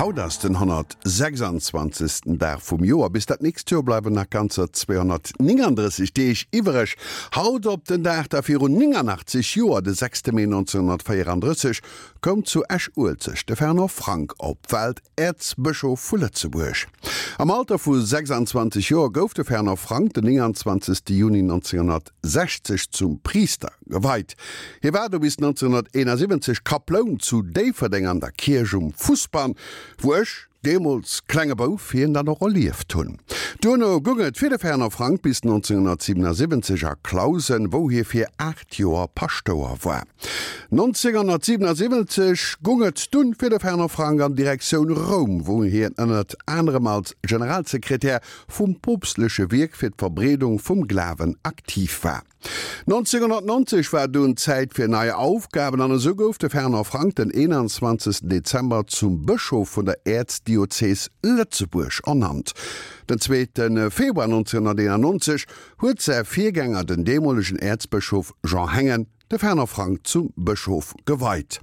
Haut ass den 126. Dag vum Joer. Bis dat nächst Joer bleiwen nach ganzer 239 Deeg iwwereg. Haut op den Dag da virun 89 Joer, de 6 Mee 1934, koum zu Esch-Uelzecht de Fernand Frank op d'Welt, Äerzbëschof vu Lëtzebuerg. Am Alter vu 26 Joer gouf de Fernand Frank den 29. Juni 1960 zum Priister geweit. Hie war du bis 1971 Kaploun zu Déifferdeng an der Kierch um Fussbann, wou ech, deemools klenge Bouf, hien dann och erlieft hunn. Duerno goung et fir de Fernand Frank bis 1977 a Clausen, wou hie fir 8 Joer Paschtouer war. 1977 goung et dunn fir de Fernand Frank an Direktioun Roum, wou hien ënnert anerem als Generalsekretär vum poopstleche Wierk fir d'Verbreedung vum Glawen aktiv war. 1990 war dunn Zäit fir nei Aufgaben an esou gouf de Fernand Frank den 21 Dezember zum Bëschof vun der Äerzdiözees Lëtzebuerg ernannt. Den zweete Februar 1991 huet säi Virgänger, den deemolegen Äerzbëschof Jean Hengen, de Fernand Frank zum Bëschof geweit.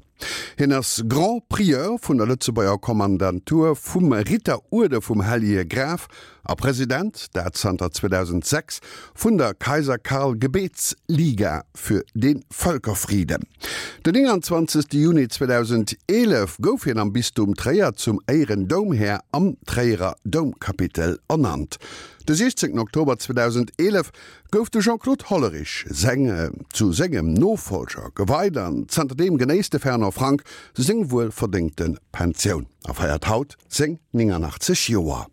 Hien ass Grand Prieur vun der Lëtzebuerger Kommandantur vum Ritteruerde vum Hellege Graf a President, dat zanter 2006, vun der Kaiser Karl Gebetsliga für den Völkerfrieden. Den 29 Juni 2011 gouf hien am Bistum Tréier zum Éirendoumhär am Tréierer Doumkapitel ernannt. De 16 Oktober 2011 gouf de Jean-Claude Hollerich seng zu sengem Nofollger geweit an zanterdeem genéisst de Fernand Frank seng wuelverdéngte Pensioun a feiert haut seng 89 Joer.